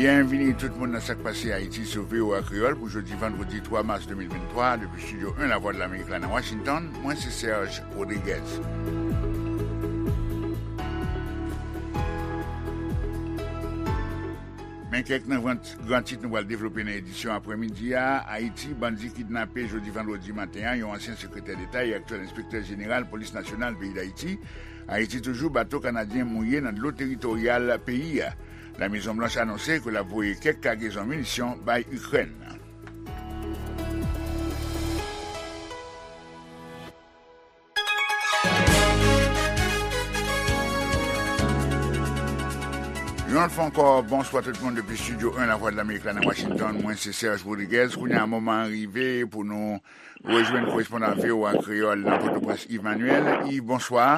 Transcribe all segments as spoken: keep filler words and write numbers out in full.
Byenvini tout moun nan Sa k Pase Ayiti sou V O A Kreyòl pou jodi vandredi twa mas de mil venntwa, depi estidyo en Lavwadlamerik la nan Washington, mwen se Serge Rodriguez. Men kèk nan gran, gran tit nou pral devlope nan edisyon aprèmidi a. Ayiti, bandi kidnape jodi vandredi maten an yon ansyen sekretè deta e aktyèl enspektè jeneral polis nasyonal peyi Dayiti. Ayiti toujou, bato kanadyen mouye nan dlo teritoryal peyi a. Lamezon Blanch anonse ke l ap voye kèk kagezon minisyon bay Ikrèn. Yon lòt fwa ankò, bonswa tout moun depi estidyo en Lavwadlamerik la nan Washington. Mwen se Serge Rodriguez. Kounye a, moman an rive pou nou rejwenn korespondan V O A Kreyòl nan Pòtoprens, Yves Manuel. Yves, bonswa.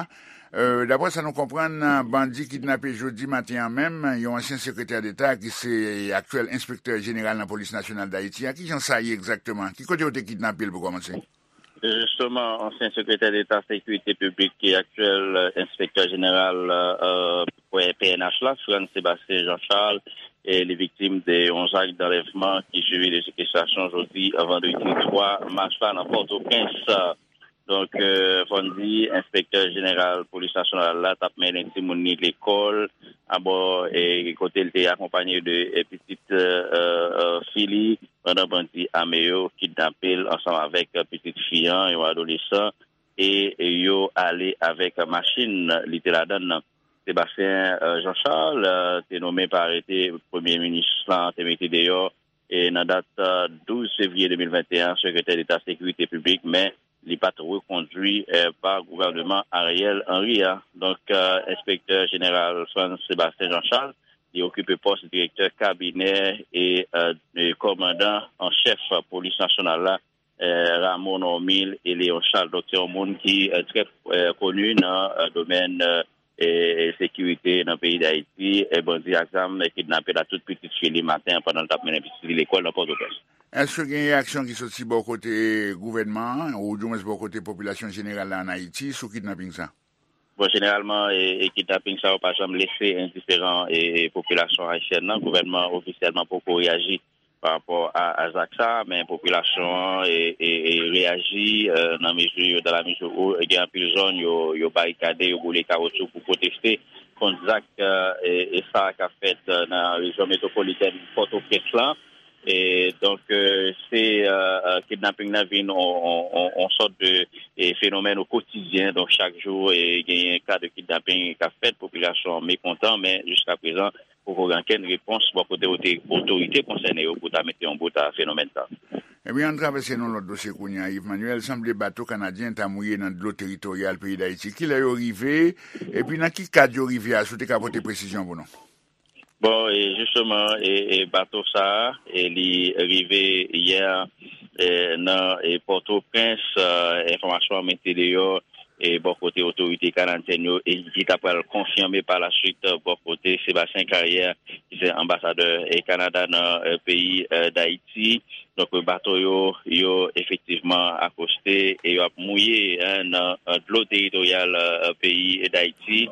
Euh, daprè sa nou konprann, bandi kidnape jodi maten an menm yon ansyen sekretè deta ki se aktyèl enspektè jeneral nan polis nasyonal Dayiti a. Kijan sa ye egzakteman? Ki kote yo te kidnape l pou kòmanse? Jisteman, ansyen sekretè deta sekirite piblik e aktyèl, euh, enspektè jeneral, euh, P N H la, Frantz Sébastien Jean Charles, e li viktim de yon zak danlèvman ki swivi de sekestrasyon jodi, vandredi twa mas la nan Pòtoprens. Donk, euh, fò n di, enspektè jeneral polis nasyonal la t ap mennen timoun li lekòl, abò, e kote l te akonpaye de, e, pitit, euh, euh, fi li, pandan bandi ame yo kidnape l ansanm avèk, euh, pitit fi an, yon adolesan, e yo ale avèk machin li te ladan l nan. Sébastien, euh, Jean Charles, euh, te nonmen pa arete premye minis lan te mete deyò, e nan dat, euh, douz fevriye de mil venteyen, sekretè deta sekirite piblik, men li pa t rekondwi, euh, pa gouvèneman Ariel Henry a. Donk, euh, enspektè jeneral Frantz Sébastien Jean Charles, li okipe pòs direktè kabinè e, euh, e kòmandan an chèf polis nasyonal la, eh, Rameau Normil e Léon Charles. Donk, se yon moun ki, eh, trè, eh, koni nan, eh, domèn, eh, eh, sekirite nan peyi Dayiti. Eh, bandi ak zam, eh, kidnape l ak tout pitit fi li maten an pandan l t ap mennen pitit li lekòl nan Pòtoprens. Èske gen reyaksyon ki soti bò kote gouvènman an, oudimwens bò kote popilasyon jeneral la ann Ayiti, sou kidnaping sa? Bon, jeneralman, e, e kidnaping sa yo pa janm lese endiferan, e, e popilasyon ayisyèn nan. Gouvènman ofisyèlman poko reyaji pa rapò a, a zak sa, men popilasyon an, e, e, e reyaji, e, nan mezi, dans la mesure où, e gen anpil zòn, yo, yo barikade, yo boule kawotchou pou pwoteste kont zak, e, e, e sa k ap fèt, e, nan rejyon metwopolitèn Pòtoprens lan. E, donk, e, se, e, e, kidnaping nan vin on, on, on, on sòt de, e, fenomèn o kotidyen. Donk, chak jou, e, genyen ka de kidnaping k ap fèt, popilasyon an mekontan, men jiska prezan, poko gen okenn repons bò kote ote-, otorite konsène yo pou ta mete yon bout a fenomèn sa. Ebyen, ann travèse nan lòt dosye kounye a, Yves Manuel. Sanble bato kanadyen ta mouye nan dlo teritoryal peyi Dayiti. Kilè yo rive? Epi nan ki kad yo rive a, si w te ka pote presizyon pou nou? Bon, e jisteman, e, e bato sa a, e li rive yè, e, nan, e, Pòtoprens, e, enfòmasyon an mete deyò, e bò kote otorite kanadyèn yo, e ki ta pral konfime pa la swit, e, bò kote Sébastien Carrière, ki se anbasadè, e, Kanada nan, e, peyi, e, Dayiti. Donk, bato yo, yo efektivman akoste e yo ap mouye, en, nan, e, dlo teritoryal, e, peyi Dayiti.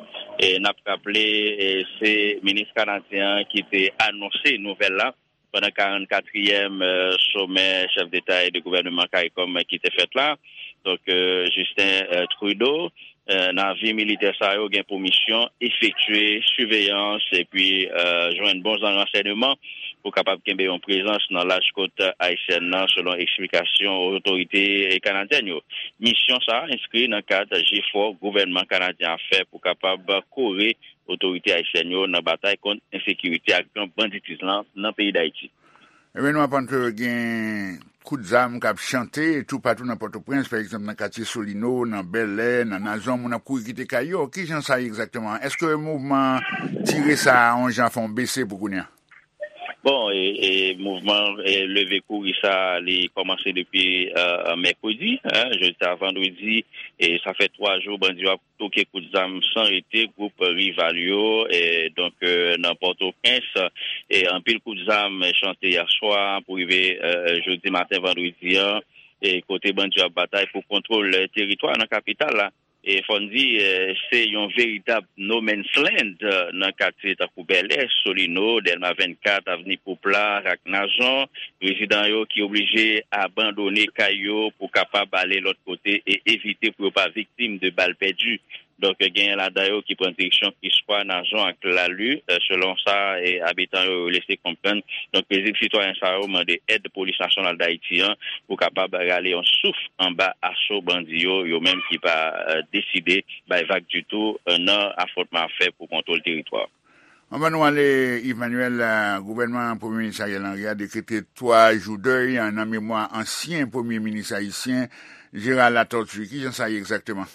E n ap raple, e, se minis kanadyen an ki te anonse nouvèl la pandan karannkatriyèm, e, somè chèf deta e de gouvèneman karikom ki te fèt la. Donk, e, Justin, e, Trudeau, e, navi militè sa yo gen pou misyon efektye siveyans epi, e, jwenn bon jan ransèyman pou kapab kenbe yon prezans nan laj kot ayisyèn nan, selon eksplikasyon otorite kanadyèn yo. Misyon sa a enskri nan kad jefò gouvènman kanadyen ap fè pou kapab kore otorite ayisyèn yo nan batay kont ensekirite ak gang banditis lan nan peyi Dayiti. Ebyen, nou aprann ke gen kout zam k ap chante toupatou nan Pòtoprens, pa egzanp, nan katye Solino, nan Bèlè, nan Nazon, moun ap kouri kite kay yo. Kijan sa ye egzakteman? Èske mouvman tire sa a, yon jan, fè yon bese pou kounye a? Bon, e, e mouvman, e, leve kouri sa a, li kòmanse depi, e, mèkredi, en, jodi a vandredi, e sa fè twa jou bandi yo ap toke kout zam san rete gwoup rival yo, e, donk, e, nan Pòtoprens, e, anpil kout zam chante yè swa pou rive, e, jodi maten vandredi an, e, kote bandi yo ap batay pou kontwòl teritwa nan kapital la. E fò n di, eh, se yon veritab no man's land, eh, nan katye tankou Bèlè, Solino, Dèlma vennkat, Avni Poupla ak Nazon. Rezidan yo ki oblije abandone kay yo pou kapab ale lòt kote e evite pou yo pa viktim de bal pèdi. Donk, genyen ladan yo ki pran direksyon Piswa, Nazon ak Lali. Eh, selon sa, eh, abitan yo lese konprann. Donk, prezidan sitwayen sa yo mande èd Polis Nasyonal Dayiti an pou kapab rale yon souf anba aso bandi yo, yo menm ki pa, eh, deside bay vag ditou, eh, nan afwontman ap fè pou kontwòl teritwa. Anvan nou ale, Yves Manuel, eh, gouvènman Premye Minis Ariel Henry a dekrete twa jou dèy, eh, nan memwa ansyen Premye Minis ayisyen Gérard Latortue. Kijan sa ye egzakteman?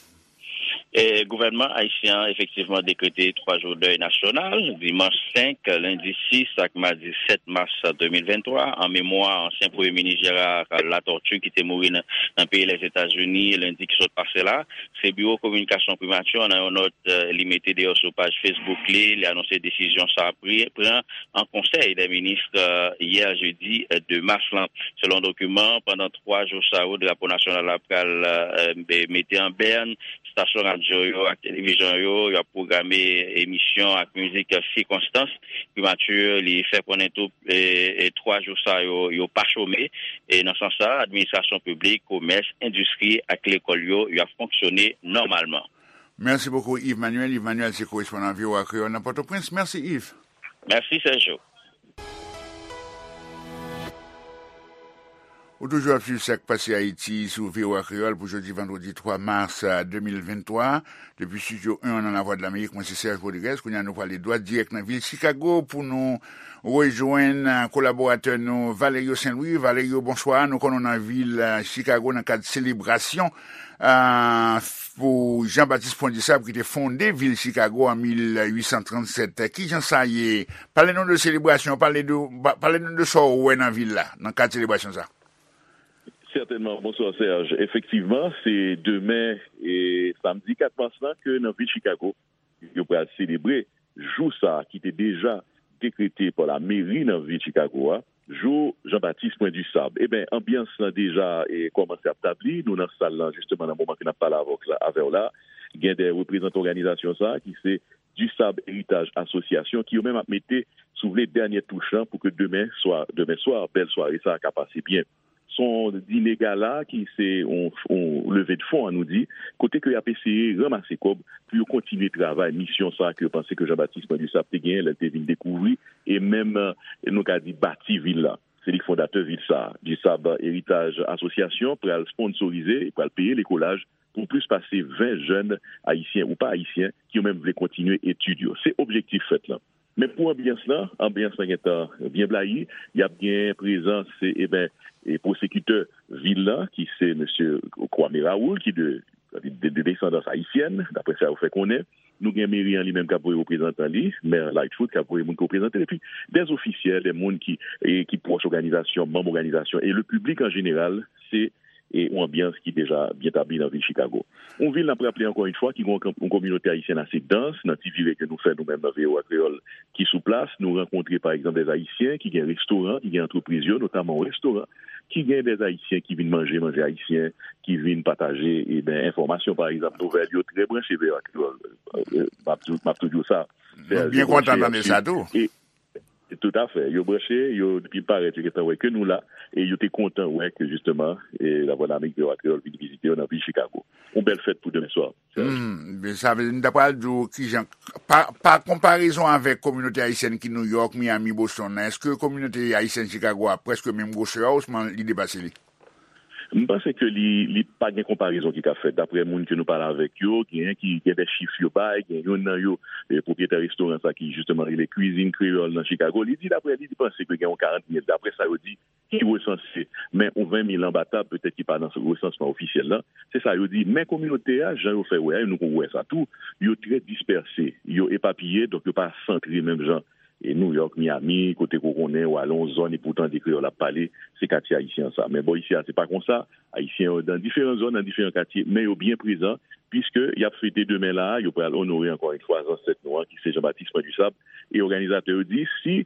E, gouvènman ayisyen an efektivman dekrete twa jou dèy nasyonal, dimanch senk, lendi sis ak madi sèt mas de mil venntwa, an memwa ansyen Premye Minis Gérard Latortue ki te mouri nan, nan peyi Lèzetazini lendi ki sot pase la. Se biwo kominikasyon primati an, nan yon nòt, eh, li mete deyò sou paj Facebook li, li anonse desizyon sa a pri-, pran an konsèy dè minis, eh, yè jedi, eh, de mas lan. Selon dokiman, pandan twa jou sa yo, drapo nasyonal la pral, eh, be-, mete an bèn, estasyon radyo yo ak televizyon yo, y ap pwograme emisyon ak mizik sikonstans. Primati, li fè konnen tou, e, e twa jou sa yo, yo pa chome. E nan sans sa, administrasyon piblik, komès, endistri ak lekòl yo, y ap fonksyone nòmalman. Mèsi bokou, Yves Manuel. Yves Manuel se korespondan V O A Kreyòl nan Pòtoprens. Mèsi, Yves. Mèsi, Sergio. Ou toujou ap swiv Sa k Pase Ayiti sou V O A Kreyòl pou jodi vandredi twa mas, eh, de mil venntwa. Depi Estidyo en nan Lavwadlamerik, mwen se Serge Rodriguez. Kounye a nou prale dwat dirèk nan vil Chicago pou nou rejwenn, eh, kolaboratè nou Valerio Saint-Louis. Valerio, bonswa. Nou konnen w nan vil, eh, Chicago nan kad selebrasyon, eh, pou Jean-Baptiste Point du Sable ki te fonde vil Chicago an mil uit san trannsèt. Kijan sa ye? Pale nou de selebrasyon, pale de, pa-, pale nou de sa w wè nan vil la, nan kad selebrasyon sa. Sètènman, bonswa Serge. Efektivman, se demen, e, samdi kat mas lan ke nan vil Chicago, yo pral selebre jou sa a ki te deja dekrete pa lameri nan vil Chicago a, jou Jean-Baptiste Point du Sable. Eben, anbyans lan deja, e, kòmanse ap tabli. Nou nan sal lan, jisteman, nan moman ke n ap pale avè w la, avè w la. Gen de reprezantan òganizasyon sa a ki se Du Sable Héritage Association, ki yo menm ap mete, si w vle, dènye touch lan pou ke demen swa, demen swa, bèl sware sa a ka pase byen. Se yon dine gala ki se yon, yon leve de fon, an nou di, kote ke y ap eseye ranmase kòb pou yo kontinye travay, misyon sa a ke yo panse ke Jean-Baptiste Point du Sable te genyen lè l te vin dekouvri e menm, eh, nou ka di, bati vil la. Se li k fondatè vil sa a. Du Sable Héritage Association pral sponsorize, pral peye lekolaj pou plis pase ven jèn ayisyen ou pa ayisyen ki yo menm vle kontinye etid yo. Se objektif fèt lan. Men pou anbyans lan, anbyans lan gentan byen blayi. Y ap gen prezans, e, eben, e, pwosekitè vil lan, ki se mesye Kwame Raoul, ki de, de, de desandans ayisyèn, daprè sa yo fè konnen. Nou gen meri an li menm k ap voye reprezantan li, mè Lightfoot, k ap voye moun ki reprezante l, epi dè ofisyèl, dè moun ki, e, ki pwòch òganizasyon, manm òganizasyon, e le piblik an jeneral, se e yon anbyans ki deja byen tabli nan vil Chicago. Yon vil, n ap raple ankò yon fwa, ki gen yon, yon kominote ayisyèn ase dans. Nan ti vire ke nou fè nou menm nan V O A Kreyòl ki sou plas, nou rankontre pa egzanp dè Ayisyen ki gen restoran, ki gen antrepriz yo, notaman yon restoran ki gen dè Ayisyen ki vin manje manje ayisyen, ki vin pataje, eben, enfòmasyon, pa egzanp, nouvèl yo trè branche V O A Kreyòl. Eh, m ap tou, m ap tou di w sa. Nou byen kontan tande sa tou. E, Toutafè. Yo branche, yo, depi parèt, yo gentan wè ke nou la, e yo te kontan wè ke, jisteman, e Lavwadlamerik V O A Kreyòl vin vizite yo nan vil Chicago. Yon bèl fèt pou demen swa. Hmm, men sa vle di, m ta pral di w kijan, pa, pa konparezon avèk kominote ayisyèn ki New York, Miami, Boston nan, èske kominote ayisyèn Chicago a prèske menm gwosè a, osnon li depase li? M panse ke li, li pa gen konparezon ki ka fèt. Daprè moun ke nou pale avèk yo, genyen ki gen de chif yo bay, gen youn nan yo, eh, pwopriyetè restoran sa ki jisteman rele Kwizin Kreyòl nan Chicago, li di, daprè li, li panse ke gen yon karant mil, daprè sa yo di, ki resanse, men yon ven mil anba tab, petèt ki pa nan resansman ofisyèl lan. Se sa yo di. Men kominote a, jan yo fè wè a, nou konn wè sa tou, yo trè dispèse, yo epapiye, donk yo pa santre menm jan e New York, Miami, kote ke w konnen, w ale yon zòn epi w tande kreyòl ap pale, se katye ayisyen an sa. Men bò isi a, se pa konsa. Ayisyen yo nan diferan zòn, nan diferan katye, men yo byen prezan, piske y ap fete demen la a, yo pral onore ankò yon fwa zansèt nou an, ki se Jean-Baptiste Point du Sable. E òganizatè yo di, si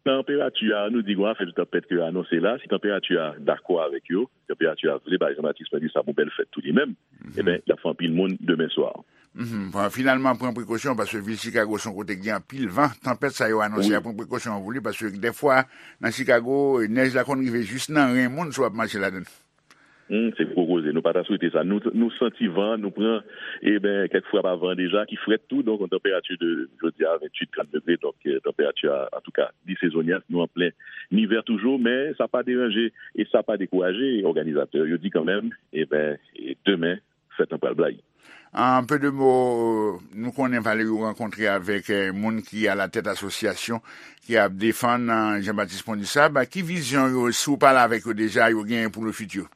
Tanperati a, nou di gen yon afè de tanpèt ke yo anonse la. Si tanperati a dakò avèk yo, tanperati a vle bay Jean-Baptiste Point du Sable yon bèl fèt tou li menm, ebyen, y ap fè anpil moun demen swa. Mhm. Bon, finalman, pran prekosyon, paske vil Chicago se yon kote ki gen anpil van. Tanpèt sa yo anonse a, pran prekosyon pou li, paske dèfwa, nan Chicago, nèj la konn rive jis nan ren moun si w ap mache ladan l. Hmm, se gwo koze. Nou pa ta swete sa. Nou, nou santi van, nou pran, e ben, kèk frap a van deja, ki frèt tou, donk, yon tanperati de, jodi a, venntuit, trant degre, donk, eh, tanperati a, antouka, li sezonya, nou an plen ivè toujou, men sa pa deranje e sa pa dekouraje òganizatè yo. Yo di kanmenm, e ben, e demen, fèt lan pral blayi. An pe de mo, nou konnen Valerio rankontre avèk, eh, moun ki alatèt asosyasyon ki ap defann, eh, Jean-Baptiste Point du Sable. Ki vizyon yo, si w pale avèk yo deja, yo genyen pou le futur?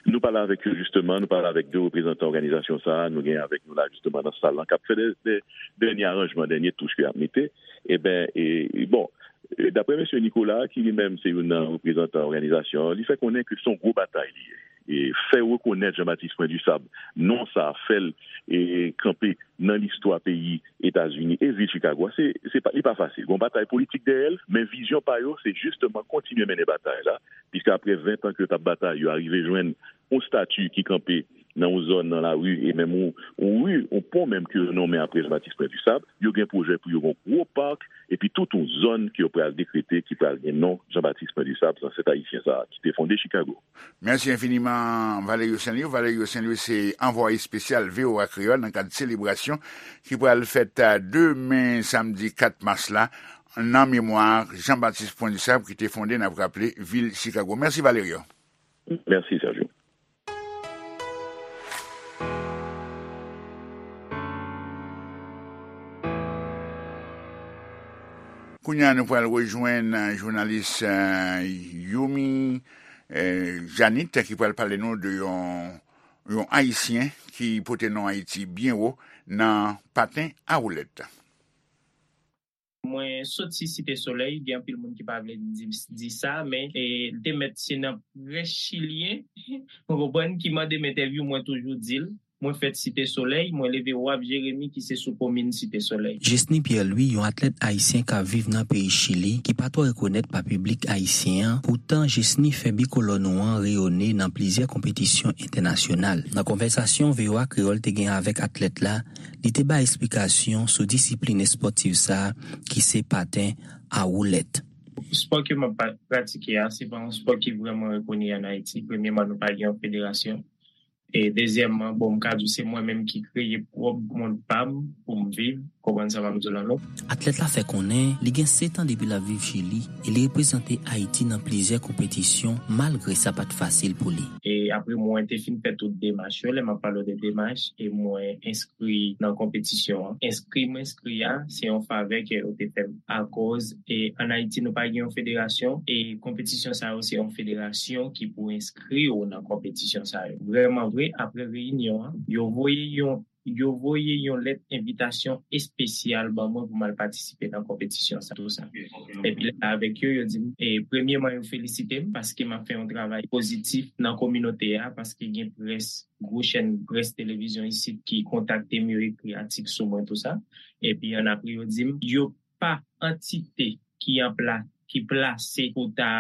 Nou pale avèk yo, jisteman, nou pale avèk de reprezantan òganizasyon sa a, nou gen avèk nou la, jisteman, nan sal lan, k ap fè dè, dè, dènye aranjman, dènye touch ke y ap mete. E ben, e, e bon, e, daprè mesye Nicolas, ki li menm se youn nan reprezantan òganizasyon an, li fè konnen ke se yon gwo batay li ye. E fè rekonèt Jean-Baptiste Point du Sable, non sa a fè l, e, kanpe nan listwa peyi Etazini e vil Chicago a, se, se pa, li pa fasil. Gon batay politik dèyè l, men vizyon pa yo, se jisteman kontinye mennen batay la, piske apre ven tan ke yo t ap batay, yo arive jwenn yon stati ki kanpe nan yon zòn nan lari, e menm yon, yon ri, yon pon menm ke yo nonmen apre Jean-Baptiste Point du Sable, yo gen pwojè pou yo gen yon gwo pak, epi tout yon zòn ke yo pral dekrete ki pral gen non Jean-Baptiste Point du Sable, zansèt ayisyen sa a ki te fonde Chicago. Mèsi enfiniman, Valerio Saint-Louis. Valerio Saint-Louis se anvwaye espesyal V O A Kreyòl nan kad selebrasyon ki pral fèt, a, demen, samdi kat mas la, nan memwa Jean-Baptiste Point du Sable ki te fonde, n ap raple, vil Chicago. Mèsi, Valerio. Mèsi, Sergio. Kounye a, nou pral rejwenn, eh, jounalis, eh, Youmi, eh, Janit, ki pral pale nou de yon, yon Ayisyen ki pote non Ayiti byen wo nan paten a woulèt. Mwen soti Site Solèy, gen anpil moun ki pa vle di, di sa, men, e, te mèt se nan près chilyen, ou konprann, ki mande m entèvyou, mwen toujou di l, mwen fèt Site Solèy, mwen leve Waf Jeremi ki se sou komin Site Solèy. Jesny Pierre Louis, yon atlèt ayisyen k ap viv nan peyi Chili, ki pa twò rekonèt pa piblik ayisyen an, poutan Jesny fè bikolò nou an reyone nan plizyè konpetisyon entènasyonal. Nan konvèsasyon V O A Kreyòl te gen avèk atlèt la, li te bay esplikasyon sou disiplin espòtif sa a ki se paten a woulèt. Spò ke m ap pa-, pratike a, se pa yon spò ki vrèman rekoni ann Ayiti. Premyèman, nou pa gen yon federasyon. E dezyèmman, bon, m ka di w se mwen menm ki kreye pwòp mond pa m pou m viv, konprann sa m ap di w la, non? Atlèt la fè konnen li gen sèt an depi l ap viv Chili e li reprezante Ayiti nan plizyè konpetisyon, malgre sa pa t fasil pou li. E apre mwen te fin fè tout demach yo, lè m ap pale w de demach, e mwen enskri nan konpetisyon an. Enskri m enskri a, se yon favè ke yo te fè m. Akoz, e, ann Ayiti, nou pa gen yon federasyon, e konpetisyon sa yo, se yon federasyon ki pou enskri w nan konpetisyon sa yo. Vrèman vre, apre reyinyon an, yo voye yon, yo voye yon lèt envitasyon espesyal ban mwen pou m al patisipe nan konpetisyon sa, tou sa. Epi lè avèk yo, yo di m, e, premyèman, yo felisite m paske m ap fè yon travay pozitif nan kominote a, paske gen près, gwo chèn près televizyon isit ki kontakte m, yo ekri atik sou mwen, tou sa. Epi annapre, yo di m, yo pa antite ki an pla-, ki plase pou ta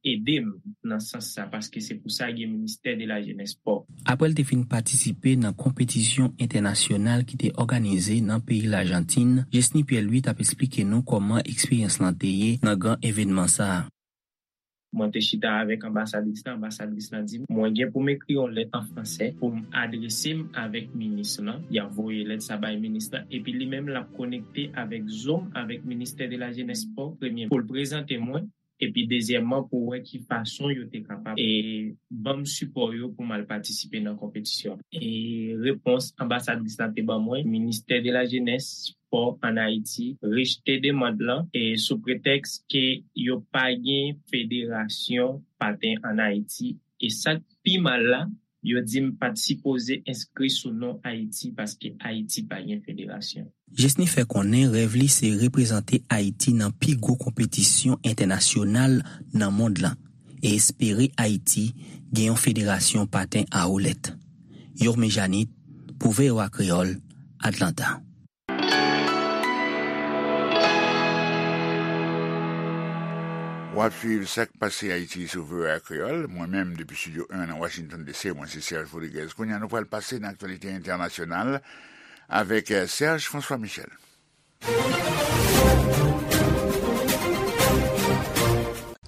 ede m nan sans sa, paske se pou sa gen Ministè de la Jenès, Spò. Apre l te fin patisipe nan konpetisyon entènasyonal ki te òganize nan peyi Lajantin, Jesny Pierre Louis t ap esplike nou kòman eksperyans lan te ye nan gran evènman sa a. Mwen te chita avèk anbasadris lan, anbasadris lan di m, mwen gen pou m ekri yon lèt an fransè pou m adrese m avèk minis lan. Y ap voye lèt sa bay minis lan, epi li menm l ap konekte avèk Zoom, avèk Ministè de la Jenès, Spò, premye, pou l prezante mwen, epi dezyèmman, pou wè ki fason yo te kapab, e, ban m sipò yo pou m al patisipe nan konpetisyon. E repons anbasadris lan te ban mwen, Ministè de la Jenès, Spò ann Ayiti rejte demann lan, e sou pretèks ke yo pa gen federasyon paten ann Ayiti. E sa k pi mal la, yo di m pa t sipoze enskri sou non Ayiti paske Ayiti pa gen federasyon. Jesny fè konnen rèv li se reprezante Ayiti nan pi gwo konpetisyon entènasyonal nan mond lan e espere Ayiti gen yon federasyon paten a woulèt. Yorme Janit, pou V O A Kreyòl, Atlanta. W ap swiv Sa k pase Ayiti sou V O A Kreyòl. Mwen menm, depi Estidyo en nan Washington D C, mwen se Serge Rodriguez. Kounye a, nou pral pase nan aktyalite entènasyonal avèk, eh, Serge François Michel.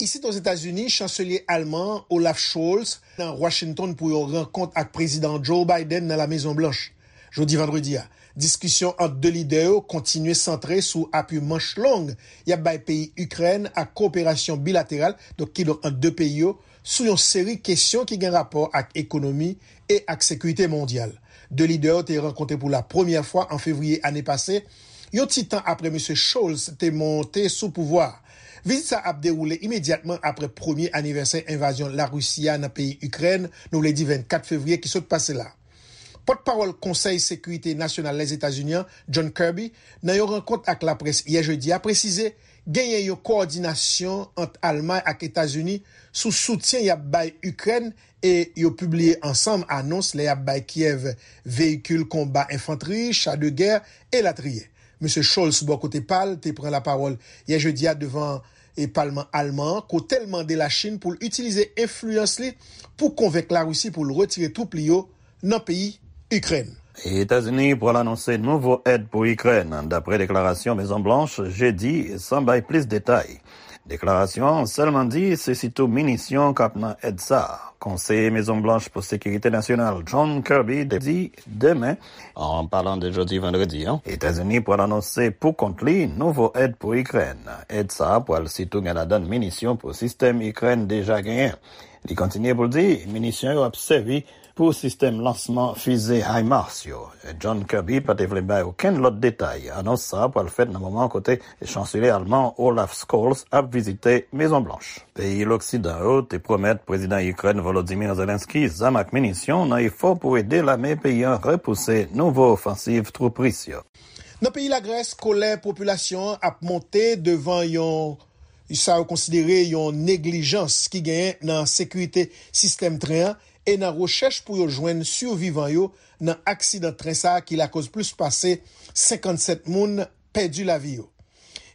Isit Ozetazini, chanselye alman an, Olaf Scholz, nan Washington pou yon rankont ak Prezidan Joe Biden nan La Mezon Blanch. Jodi vandredi a, diskisyon ant de lidè yo kontinye santre sou apui manch long y ap bay peyi Ikrèn ak kowoperasyon bilateral, donk, kidonk ant de peyi yo, sou yon seri kesyon ki gen rapò ak ekonomi e ak sekirite mondyal. De lidè yo te rankontre pou la premyè fwa an fevriye ane pase, yon ti tan apre Mesye Scholz te monte sou pouvwa a. Vizit sa ap dewoule imedyatman apre premye anivèsè envazyon Larisi a nan peyi Ikrèn, nou vle di vennkat fevriye ki sot pase la. Pòtpawòl Konsèy Sekirite Nasyonal Lèzetazini an, John Kirby, nan yon rankont ak laprès yè jedi a, presize genyen yon kowòdinasyon ant Almay ak Etazini sou soutyen y ap bay Ikrèn e yo pibliye ansanm anons lè y ap bay Kyèv veyikil konba, enfantri, cha de gè, elatriye. Mesye Scholz, bò kote pa l, te pran lapawòl yè jedi a devan, e, palman alman an, kote l mande Lachin pou l itilize enfliyans li pou konvenk Larisi pou l retire twoup li yo nan peyi Ikrèn. Etazini pral anonse nouvo èd pou Ikrèn, dapre deklarasyon Mezon Blanch jedi, san bay plis detay. Deklarasyon an sèlman di se sitou minisyon k ap nan èd sa a. Konseye Mezon Blanch pou Sekirite Nasyonal, John Kirby, te di demen, an palan de jodi vandredi an, Etazini pral anonse pou kont li nouvo èd pou Ikrèn. Èd sa a pral sitou gen ladan l minisyon pou sistèm Ikrèn deja genyen. Li kontinye pou l di minisyon yo ap sèvi pou sistèm lansman fize HIMARS yo. John Kirby pa te vle bay okenn lòt detay. Anons sa a pral fèt nan moman kote chanselye alman Olaf Scholz ap vizite Mezon Blanch. Peyi loksidan yo te pwomèt prezidan Ikrèn Volodymyr Zelensky zam ak minisyon nan efò pou ede lame peyi an repouse nouvo ofansiv twoup ris yo. Nan peyi Lagrès, kolè popilasyon an ap monte devan yon, sa yo konsidere yon neglijans ki genyen nan sekirite sistèm tren an e nan rechèch pou yo jwenn sivivan yo nan aksidan tren sa a ki lakoz plis pase senkannsèt moun pèdi lavi yo.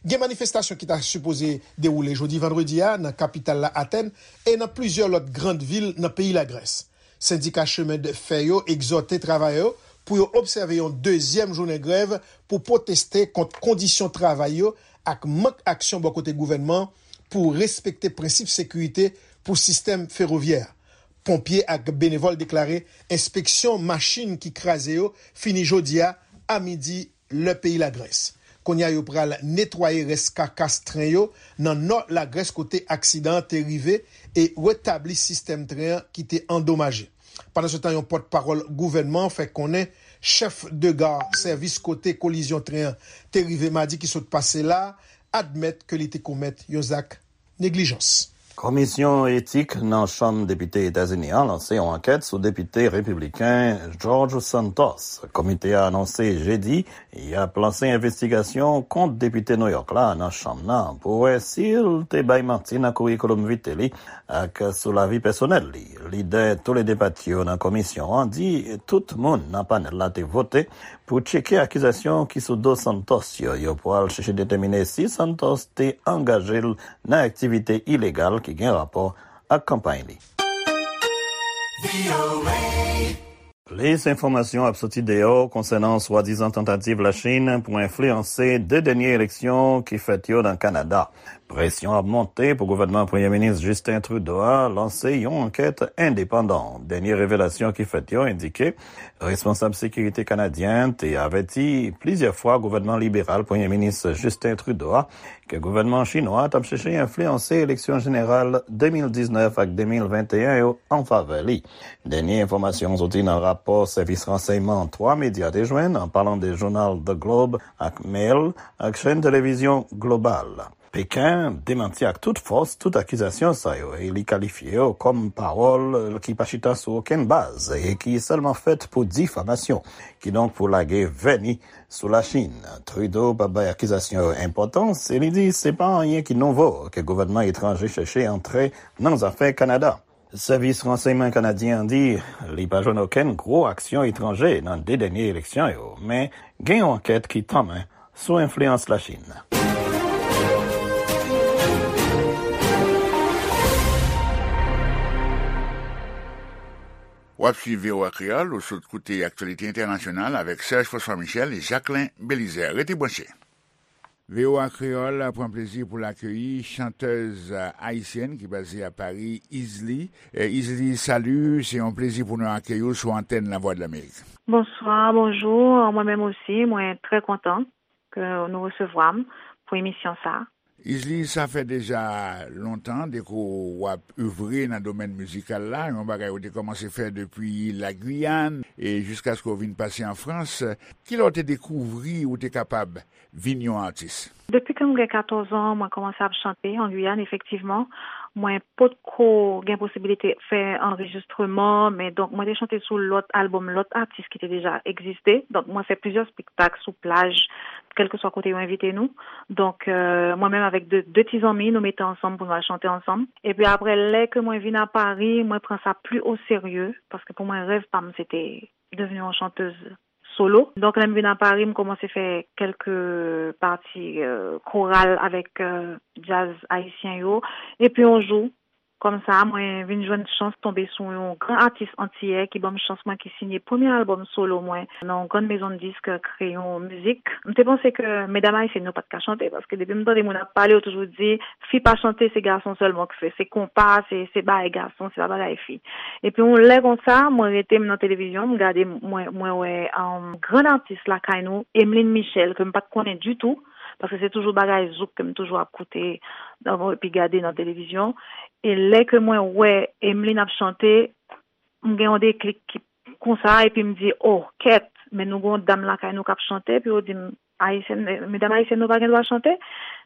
Gen manifestasyon ki ta sipoze dewoule jodi vandredi a nan kapital la, Atèn, e nan plizyè lòt grann vil nan peyi Lagrès. Sendika chemen de fè yo egzòte travayè yo pou yo obsève yon dezyèm jounen grèv pou pwoteste kont kondisyon travay yo ak mank aksyon bò kote gouvènman an pou respekte prensip sekirite pou sistèm fewovyè a. Ponpye ak benevòl deklare enspeksyon machin ki kraze yo fini jodi a, a midi, lè peyi Lagrès. Kounye a, yo pral netwaye rès kakas tren yo nan nò Lagrès kote aksidan an te rive e retabli sistèm tren an ki te andomaje. Pandansetan, yon pòtpawòl gouvènman an fè konnen chèf de gar sèvis kote kolizyon tren an te rive madi ki sot pase la a admèt ke li te komèt yon zak neglijans. Komisyon etik nan Chanm Depite Etazini an lanse yon ankèt sou depite repibliken George Santos. Komite a anonse jedi y ap lanse envestigasyon kont depite Nouyòk la nan chanm nan pou wè si l te bay manti nan kourikoulòm vite li ak sou lavi pèsonèl li. Lidè toulede pati yo nan komisyon an di tout moun nan panèl la te vote pou tcheke akizasyon ki sou do Santos yo. Yo pral chèche detèmine si Santos te angaje l nan aktivite ilegal ki gen rapò ak kanpay li. Plis enfòmasyon ap soti deyò konsènan swadizan tantativ Lachin pou enfliyanse de dènye eleksyon ki fèt yo nan Kanada. Presyon ap monte pou gouvènman Premye Minis Justin Trudeau a lanse yon ankèt endepandan. Dènye revelasyon ki fèt yo endike responsab sekirite kanadyen te avèti plizyè fwa gouvènman liberal Premye Minis Justin Trudeau a ke gouvènman chinwa t ap chèche enfliyanse eleksyon jeneral de mil diznèf ak de mil venteyen yo an favè li. Dènye enfòmasyon soti nan rapò sèvis ransèyman twa medya te jwenn, an palan de jounal The Globe ak Mail ak chèn televizyon Global. Peken demanti ak tout fòs tout akizasyon sa yo e li kalifye yo kòm pawòl ki pa chita sou okenn baz e ki sèlman fèt pou difamasyon, kidonk pou lage vèni sou Lachin. Trudeau pa bay akizasyon yo enpòtans e li di se pa anyen ki nouvo ke gouvènman etranje chèche antre nan zafè Kanada. Sèvis ransèyman kanadyen an di li pa jwenn okenn gwo aksyon etranje nan de dènye eleksyon yo, men gen yon ankèt ki tanmen sou enfliyans Lachin. W ap swiv V O A Kreyòl, ou sot koute aktyalite entènasyonal avèk Serge François Michel e Jacquelin Belizaire. Rete branche. V O A Kreyòl pran plezi pou l akeyi chantèz ayisyèn ki baze a Pari, Izli. Eh, Izli, salut, se yon plezi pou nou akeyi w sou antèn Lavwadlamerik. Bonswa, bonjou. Mwen menm osi, mwen trè kontan ke nou resevwa m pou emisyon sa a. Izli, sa fè deja lontan depi w ap evre nan domèn mizikal la, yon bagay ou te kòmanse fè depi Lagwiyàn e jiskaske w vin pase an Frans. Kilè w te dekouvri ou te kapab vin yon atis? Depi ke m gen katòz an, mwen kòmanse ap chante an Giyàn, efektivman. Mwen potko gen posibilite fè anrejistreman, men donk mwen te chante sou lòt albòm lòt atis ki te deja egziste. Donk mwen fè plizyè espektak sou plaj, kèlkeswa kote yo envite nou. Donk, euh, mwen menm avèk de, de ti zanmi, nou mete ansanm pou nou al chante ansanm. Epi apre, lè ke mwen vin a Pari, mwen pran sa pli o serye, paske pou mwen, rèv pa m, se te devni yon chantèz solo. Donk, lè m vin a Pari, m kòmanse fè kèlke pati, euh, koral avèk, euh, djaz ayisyen yo. Epi yon jou, kòmsa, mwen vin jwenn chans tonbe sou yon gran atis antiyè ki ban m chans mwen ki siyen premye albòm solo mwen nan yon grann mezon disk Kreyon Mizik. M te panse ke medam ayisyèn yo pa t ka chante, paske depi m tande moun ap pale, yo toujou di, fi pa chante, se gason sèlman k fè. Se konpa, se, se bagay gason, se pa bagay fi. Epi yon lè konsa, mwen rete m nan televizyon, m gade, mwen, mwen wè, um, grann atis lakay nou, Emeline Michel, ke m pa t konnen ditou, paske se toujou bagay zouk ke m toujou ap koute, epi gade nan televizyon. E lè ke mwen wè Emeline ap chante, m gen yon deklik ki konsa, epi m di, "Oh, kèt, men nou gen yon dam lakay nou k ap chante," epi yo di m, "Ayisyèn, medam ayisyèn nou pa gen dwa chante."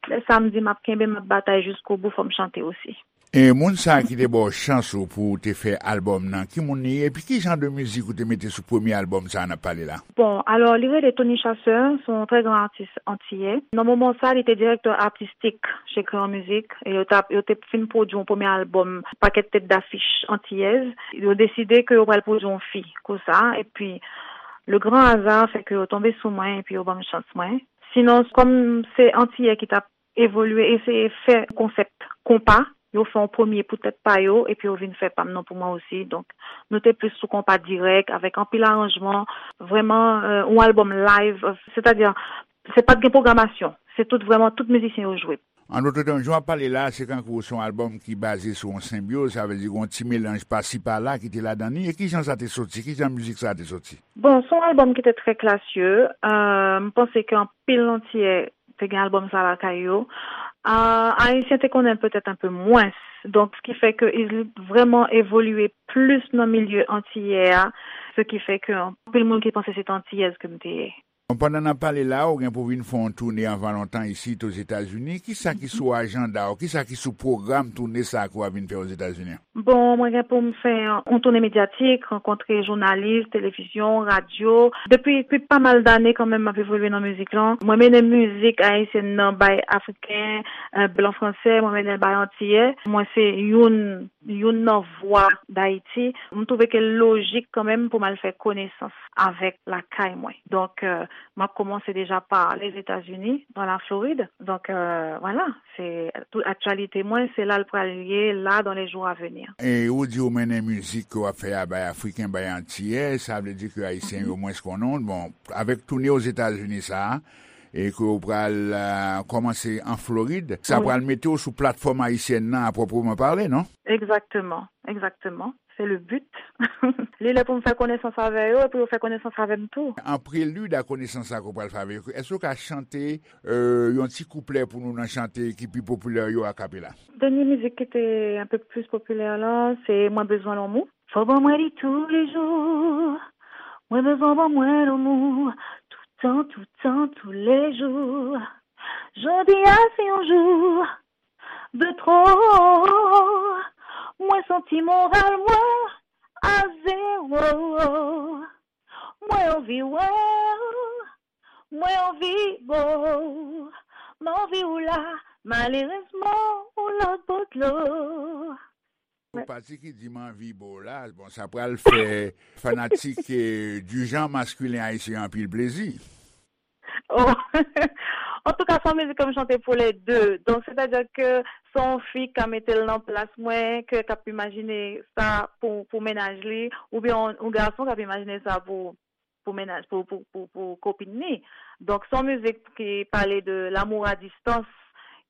Lè sa, m di, "M ap kenbe, m ap batay jiskobou, fò m chante osi." E moun sa a ki te ba w chans ou pou w te fè albòm nan, ki moun li ye, epi ki jan de mizik ou te mete sou premye albòm sa a n ap pale la? Bon, alò, li rele Tony Chasseur, se yon trè gran atis antiyè. Nan moman sa, li te direktè atistik chez Crayon Music, e yo t ap, yo te fin pwodui yon premye albòm, pakèt tèt dafich antiyèz. Yo deside ke yo pral pwodui yon fi, konsa, epi le grand hasard fè ke yo tonbe sou mwen, epi yo ban m chans mwen. Sinon, kòm se antiyè ki t ap evolye, eseye fè konsèp konpa, yo fè yon premye pou tèt pa yo, epi yo vin fè pa m nan pou mwen osi. Donk, nou te plis sou konpa dirèk, avèk anpil aranjman, vrèman, euh, yon albòm live, euh, sètadi, se pa t gen pwogramasyon, se tout vrèman tout mizisyen yo jwe. An dòt tèm, jan w ap pale la, se kankou se yon albòm ki baze sou yon senbyoz, sa vle di gen yon ti melanj pasi pala ki te ladan li. E ki jan sa te soti? Ki jan mizik sa te soti? Bon, se yon albòm ki te trè klasye. Euh, m panse ke anpil antiyè te gen albòm sa lakay yo. Ah, Ayisyen te konnen l petèt enpe mwens. Donk, se ki fè ke Izli vrèman evolye plis nan milye antiyè a, se ki fè ke anpil moun ki panse se te antiyèz ke m te ye. Bon, pandan n ap pale la, ou gen pou w vin fè yon toune anvan lontan isit Ozetazini. Kisa ki sou ajanda w? Kisa ki sou pwogram toune sa a ke w ap vin fè Ozetazini an? Bon, mwen gen pou m fè yon toune medyatik, rankontre jounalis, televizyon, radyo. Depi, depi pa mal dane kanmenm, m ap evolye nan mizik lan. Mwen mennen mizik ayisyèn nan bay Afriken, eh, blan fransè, mwen mennen l bay Antiyè. Mwen se youn, youn nan vwa Dayiti. M twouve ke l lojik kanmenm pou m al fè konesans avèk lakay mwen. Donk, eh, m ap kòmanse deja pa Lèzetazini, nan Laflorid. Donk, eh, vwala, se tout aktyalite mwen, se la l pral ye, la, dans les jours à venir. E ou di ou mennen mizik ke w ap fè a bay Afriken, bay Antiyè, sa vle di ke Ayisyen yo mwens konnen w. Bon, avèk toune Ozetazini sa a, e ke w pral, eh, kòmanse an Florid, sa pral mete w sou platfòm ayisyèn nan a pwoprèman pale, non? Egzakteman, egzakteman. Se le but. Li lè pou m fè konesans avè yo, epi yo fè konesans avè m tou. An prelid a konesans sa ke w pral fè avè yo, èske w ka chante, euh, yon ti kouplè pou nou nan chante ki pi popilè yo akapela? Dènye mizik ki te enpe plis popilè la, se Mwen bezwen lanmou. Fò ban mwen li toulejou. Mwen bezwen ban mwen lanmou. Toutan, toutan, toulejou. Jodi a se yon jou de twò. Mwen santi moral mwen a zewo. Mwen anvi wè w, mwen anvi bo w. M anvi w la, malerezman, ou lòt bò dlo. Ou pati ki di m anvi bo w la, bon, sa pral fè fanatik, eh, du genre masculin ayisyen anpil plezi. Oh. Antouka, se yon mizik ke m chante pou lè de. Donk, sètadi ke se yon fi k ka mete l nan plas mwen, ke k ap imajine sa pou, pou mennaj li, oubyen yon, yon gason k ap imajine sa pou, pou mennaj, pou, pou, pou, pou kopin li. Donk, se yon mizik ki pale de l'amour à distance.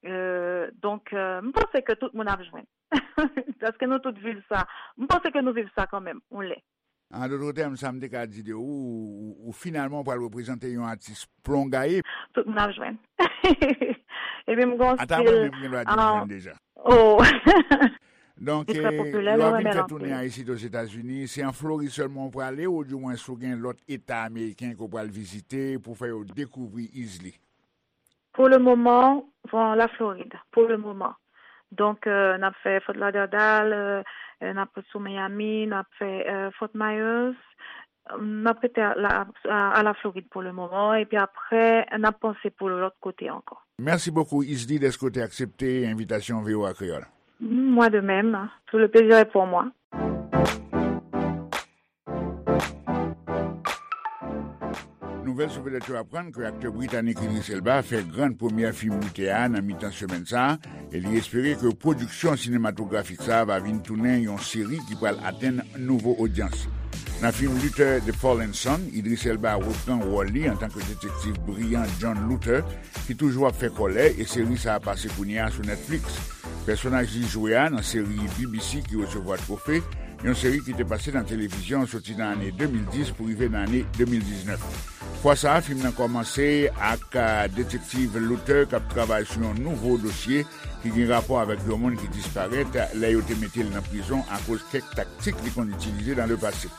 Euh, donk, euh, m panse ke tout moun ap jwenn. Paske nou tout viv sa. M panse ke nou viv sa kanmenm, yon lè. An dòt tèm, sa m te ka di de ou, ou, ou finalman pral reprezante yon atis plongaye. Tout moun ap jwenn. Epi m gon stil. Ata mwen menm gen dwa di m jwenn deja. Oh. Donk, li trè popilè, yo ap vin fè tounen a isit Ozetazini. Se an Florid sèlman ou prale, oudimwens ou gen lòt eta ameriken ke w pral vizite pou fè yo dekouvri Easley? Pou le moman, bon, la Florid, pou le moman. Donk, euh, n ap fè Fort Lauderdale, euh, euh, n ap sou Miami, n ap fè, euh, Fort Myers, n ap rete a la, a, a la Florid pou le moman, epi apre, n ap panse pou lòt kote ankò. Merci beaucoup, Easley, dèske w te aksepte envitasyon V O A Kreyòl. Mm, moi de même. Tout le plaisir est pour moi. Nouvèl sou vedèt yo aprann ke aktè britanik Idris Elba fè grann premyè fim Luther a nan mitan semèn sa a, e li espere ke pwodiksyon sinematografik sa a va vin tounen yon seri ki pral atenn nouvo odyans. Nan fim Luther, The Fallen Sun, Idris Elba repran wòl li antanke detektiv briyan John Luther, ki toujou ap fè kòlè, e seri sa a pase kounye a sou Netflix. Pèsonaj li jwe a nan seri B B C ki resevwa twofe, yon seri ki te pase nan televizyon soti nan ane de mil dis pou rive nan ane de mil diznèf. Fwa sa a, fim nan kòmanse ak, a, detektiv Luther k ap travay sou yon nouvo dosye ki gen rapò avèk yon moun ki disparèt lè yo te mete l nan prizon akoz kèk taktik li konn itilize nan lepase.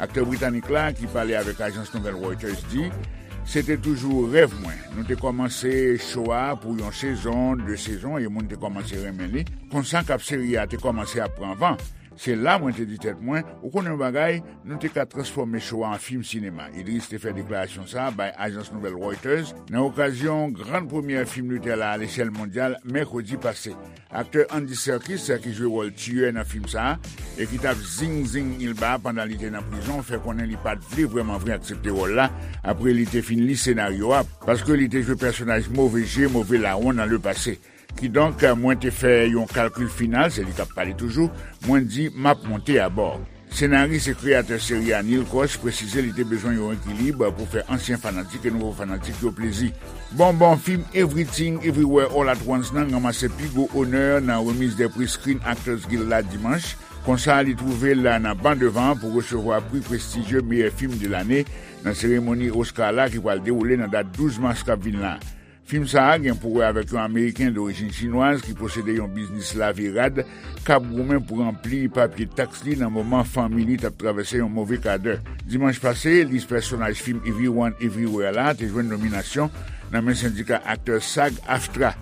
Aktè britanik la, ki pale avèk ajans nouvèl Reuters, di, "Se te toujou rèv mwen. Nou te kòmanse cho a pou yon sezon, de sezon, e moun te kòmanse renmen li. Konsa k ap seri a te kòmanse ap pran van. Se la mwen te di tèt mwen, ou konnen yon bagay, nou te ka transfòme cho a an fim sinema." Idris te fè deklarasyon sa a bay ajans nouvèl Reuters nan okazyon grann premyè fim Luther la alechèl mondyal mèkredi pase. Aktè Andy Serkis, ki jwe wòl tiyè nan fim sa a, e ki t ap zing zing Elba pandan li te nan prizon, fè konnen li pa t vle vrèman vre aksepte wòl la apre li te fin li senaryo a, paske li te jwe pèsonaj move je, move lawon nan lepase. Kidonk, mwen te fè yon kalkil final, se li k ap pale toujou, mwen di, "M ap monte abò." Senaris e kreyatè seri a Neil Koch presize li te bezwen yon ekilib pou fè ansyen fanatik e nouvo fanatik yo plezi. Bon, bon, fim Everything Everywhere All at Once nan ranmase pi gwo onè nan remiz de pri Screen Actors Guild la dimanch. Konsa, li twouve l nan ban devan pou resevwa pri prestijye meyè fim de lane nan seremoni Oscar la ki pral dewoule nan dat douz mas k ap vin la. Fim sa a gen pou wè avèk yon Ameriken dorijin chinwaz ki posede yon biznis lave rad k ap goumen pou ranpli papye taks li nan moman fanmi li t ap travèse yon move kadè. Dimanch pase, lis pèsonaj fim Everyone Everywhere la te jwenn nominasyon nan men sendika aktè SAG-AFTRA.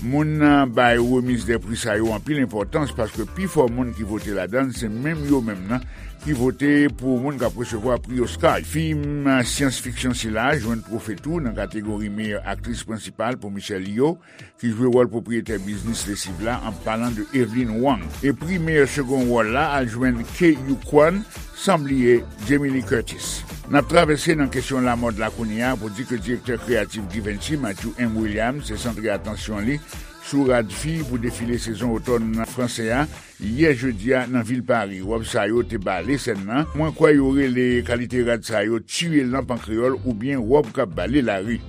Moun nan bay remiz de pri sa yo anpil enpòtans paske pifò moun ki vote ladan l se menm yo menm nan ki vote pou moun k ap resevwa pri Oscar. Fim syans fiksyon sila jwenn twofe tou nan kategori meyè aktris prensipal pou Michelle Yeoh, ki jwe wòl pwopriyetè biznis lesiv la, an palan de Evelyn Wang. E pri meyè segond wòl la al jwenn Ke Huy Quan, san bliye Jamie Lee Curtis. N ap travèse nan kesyon lamòd la kounye a pou di ke direktè kreyatif Givenchy, Matthew M. Williams, te santre atansyon li sou rad fi pou defile sezon otòn franse a, yè jedi a nan vil Pari. Wòb sa yo te bale sèn nan. Mwen kwè yo rele kalite rad sa yo tiye lanp an kreyòl oubyen wòb k ap bale lari.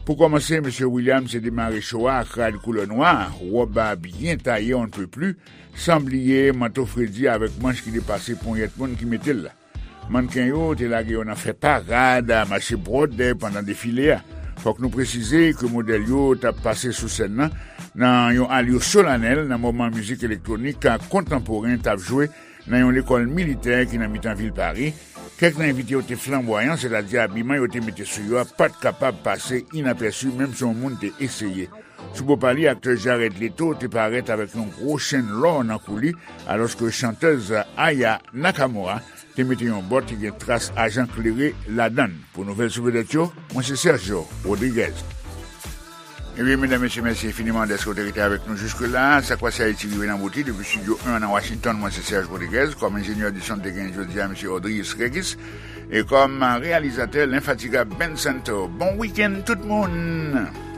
Pou kòmanse, mesye Williams te demare cho a ak rad koulè nwa, wòb a byen taye on ne peut plus, san bliye manto fredi avèk manch ki depase ponyèt moun ki mete l la. Mannken yo te lage yo nan fè parad, mache bwòdè pandan defile a. Fòk nou presize ke modèl yo t ap pase sou sèn nan, nan yon alyo solanèl nan moman mizik elektwonik kontanporen t ap jwe nan yon lekòl militè ki nan mitan vil Pari. Kèk nan envite yo te flanbwayan, sètadi abiman yo te mete sou yo a pa t kapab pase inapèsi, menm si yon moun te eseye. Sou bò pa li, aktè Jared Leto te parèt avèk yon gwo chenn lò nan kou li, alòske chantèz Aya Nakamura te mete yon bòt ki gen tras ajan klere ladan l. Pou nouvèl sou vedèt yo, mwen se Sergio Rodriguez. Ebyen, medam, mesye, mèsi enfiniman dèske w te rete avèk nou jiske la. Sa k pase Ayiti rive nan bout li depi Estidyo en nan Washington. Mwen se Serge Rodriguez. Kòm enjenyè di son, te gen jodi a, mesye Audrius Regis. E kòm reyalizatè, lenfatigab Ben Santo. Bon wikenn, tout moun!